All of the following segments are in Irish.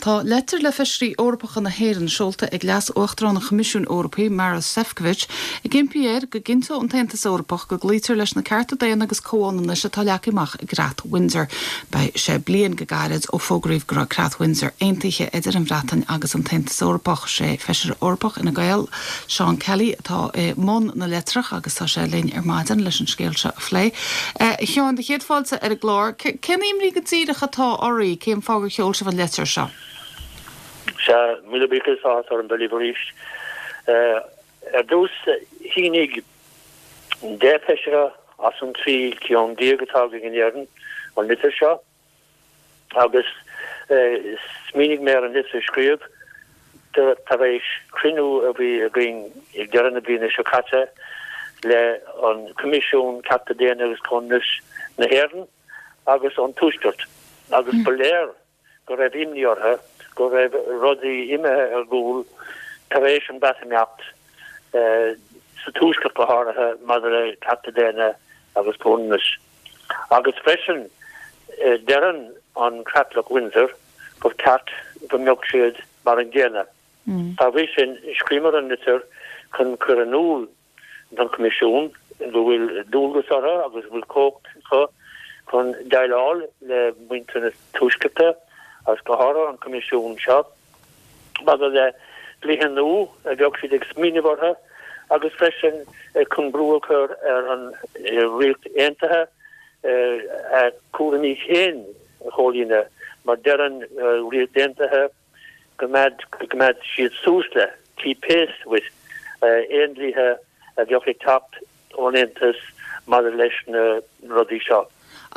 Tá leitir le Feisirí Eorpacha na hÉireann seolta ag Leas-Uachtarán an Choimisiúin Eorpaigh, Maros Sefcovic, ag impí air go gcinnteodh an tAontas Eorpach go gcloítear leis na cearta daonna agus comhionannais atá leagtha amach i gCreat Windsor. Beidh sé bliain go gairid ó fógraíodh go raibh Creat Windsor aontaithe idir an Bhreatain agus an tAontas Eorpach. Sé Feisire Eorpach Fhine Gael, Seán Kelly, atá i mbun na leitreach agus tá sé linn ar maidin leis an scéal seo a phlé. A Sheáin, do chéad fáilte ar an gclár. Cén imní go díreach atá oraibh? Cén fáth gur sheol sibh an leitir seo? Sea, míle buíochas, áthas orm bheith libh arís. Ar dtús, shínigh 10 feisire as an 13 ceann atá againn in Éirinn an litir seo. Agus smaoinigh mé ar an litir a scríobh tar éis cruinniú a bhí againn ag deireadh na bliana seo caite le an Coimisiún Cearta Daonna agus Comhionannais na hÉireann agus an Tuaiscirt agus ba léir go raibh imní orthu go raibh rudaí imithe ar gcúl tar éis an Bhreatimeacht sa Tuaisceart go háirithe maidir le cearta daonna agus comhionannas. Agus freisin, deireann an Creatlach Windsor gur ceart go mbeadh siad mar an gcéanna. Dá bhrí sin, scríobhamar an litir chun cur in iúl don Choimisiún go bhfuil dualgas orthu agus go bhfuil cumhacht acu chun déileáil le muintir na Tuaiscearta agus go háirithe an Coimisiún seo. maidir le dlíthe nua a bheadh siad ag smaoineamh orthu agus freisin chun brú a chur ar an Ríocht Aontaithe a cúraimí féin a chomhlíonadh mar deir an Ríocht Aontaithe go gcoimeád siad suas le, keep pace with, aon dlíthe a bheadh ag teacht ón Aontas maidir leis na rudaí seo.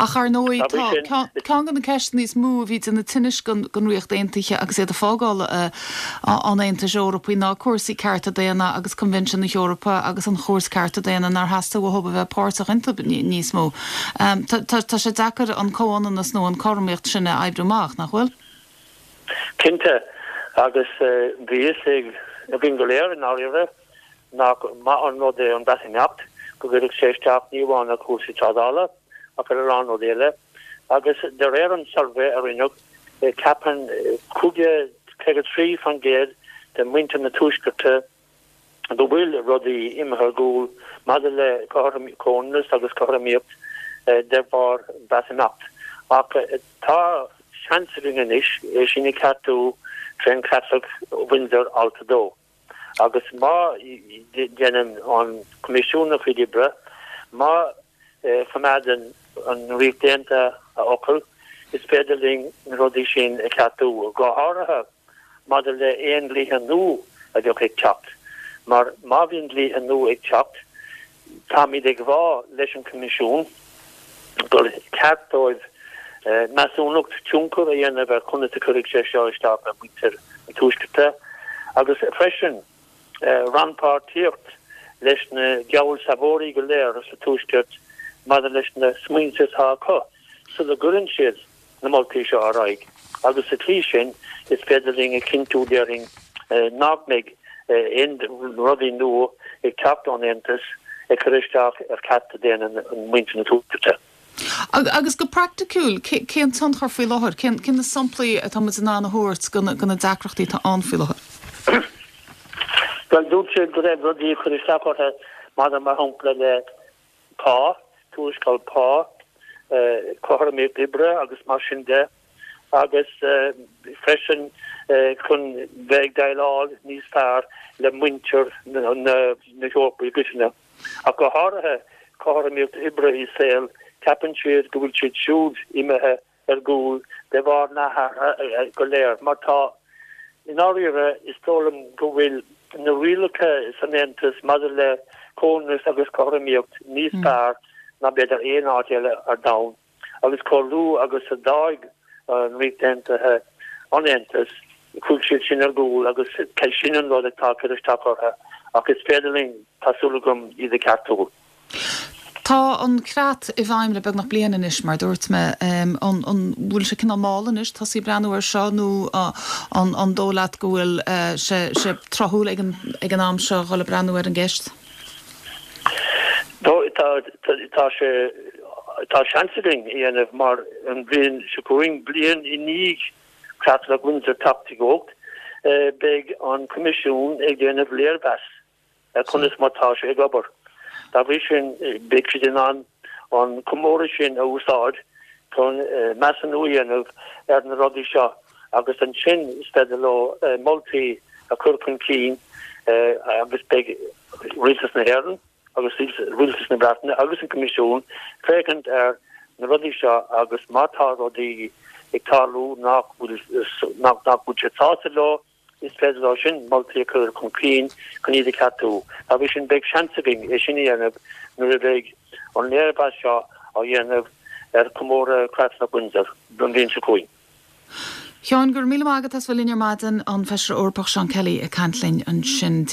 Ach ar ndóigh, tá ceann de na ceisteanna is mó a bhí ag déanamh tinnis don Ríocht Aontaithe agus iad ag fágáil an Aontais Eorpaigh ná cúrsaí cearta daonna agus Coinbhinsiún na hEorpa agus an Chúirt Cearta Daonna nár theastaigh uathu a bheith páirteach iontu níos mó. Tá sé deacair an comhionannas nó an cothromaíocht sin a oibriú amach, nach bhfuil? Cinnte, agus bhí fhios againn go léir i ndáiríre nach maith an rud é an Breatimeacht, go gcuirfeadh sé isteach ní amháin ar chúrsaí trádála ach ar a lán rudaí eile. Agus de réir an tsuirbhé a rinneadh, ceapann 53% de mhuintir na Tuaiscearta go bhfuil rudaí imithe ar gcúl maidir le comhionannas agus cothromaíocht de bharr an Bhreatimeacht. Ach tá seans againn anois é sin a cheartú trén Chreatlach Windsor Alt 2. Agus má dhéanann an Coimisiún a chuid oibre, má choimeádann an Ríocht Aontaithe a fhocal, is féidir linn na rudaí sin a cheartú, go háirithe maidir le aon dlíthe nua a bheadh ag teacht. Mar má bhíonn dlíthe nua ag teacht, táimid ag rá leis an Choimisiún gur ceart dóibh measúnacht tionchair a dhéanamh ar conas a chuirfidh sé seo isteach ar mhuintir na Tuaiscearta agus freisin rannpháirtíocht leis na geallsealbhóirí go léir sa Tuaisceart maidir leis na smaointe atá acu sula gcuireann siad na moltaí seo ar aghaidh agus sa tslí sin is féidir linn a chinntiú déarfainn nach mbeidh aon rudaí nua ag teacht ón Aontas ag cur isteach ar chearta daonna mhuintir na Tuaiscearta. Agus go praiticiúil, cén tionchar faoi láthair? Cén na samplaí atá muid in ann a thabhairt de na deacrachtaí atá ann faoi láthair? Bhuel, dúirt siad go raibh rudaí ag cur isteach orthu maidir mar shampla le pá, tuarascáil pá, cothromaíocht oibre agus mar sin de, agus freisin chun bheith ag déileáil níos fearr le muintir na hEorpa i gcoitinne. Ach go háirithe cothromaíocht oibre is saoil, ceapann siad go bhfuil siad siúd imithe ar gcúl de bharr na hathruithe go léir. Mar tá, i ndáiríre, is dóigh liom go bhfuil na rialacha san Aontas maidir le comhionannas agus cothromaíocht níos fearr ná b'fhéidir aon áit eile ar domhan. Agus chomh luath agus a d'fhág an Ríocht Aontaithe an Aontas, chuaigh siad sin ar gcúl agus sin an rud atá ag cur isteach orthu. Ach is féidir linn, tá súil agam, iad a cheartú. Tá an creat i bhfeidhm le beagnach bliain anois, mar a dúirt mé. An bhfuil sé cineál mall anois tosaí ag breathnú air seo nó an dóigh leat go bhfuil sé tráthúil ag an am seo dhul ag breathnú ar an gceist? Tá sé, tá seans againn a dhéanamh mar an bhliain seo chugainn, bliain i ndiaidh. Creatlach Windsor teacht i gcumhacht, beidh an Coimisiún ag déanamh léirmheas ar conas mar tá sé ag obair. Dá bhrí sin, beidh siad in ann an comóradh sin a úsáid chun measúnú a dhéanamh ar na rudaí seo agus ansin is féidir leo moltaí a chur chun cinn agus beidh Rialtas na hÉireann agus Rialtas na Breataine agus an Coimisiún féachaint ar na rudaí seo agus má tá rudaí ag tarlú nach bhfuil nach bhfuil siad sásta leo, Is féidir leo sin moltaí a chur chun cinn chun iad a cheartú. Dá bhrí sin, beidh seans againn é sin a dhéanamh nuair a bheidh an léirmheas seo á dhéanamh ar chomóradh Chreatlach Windsor don bhliain seo chugainn. Sheáin, go raibh míle maith agat as bheith linn ar maidin, an Feisire Eorpach Seán Kelly ag caint linn ansin.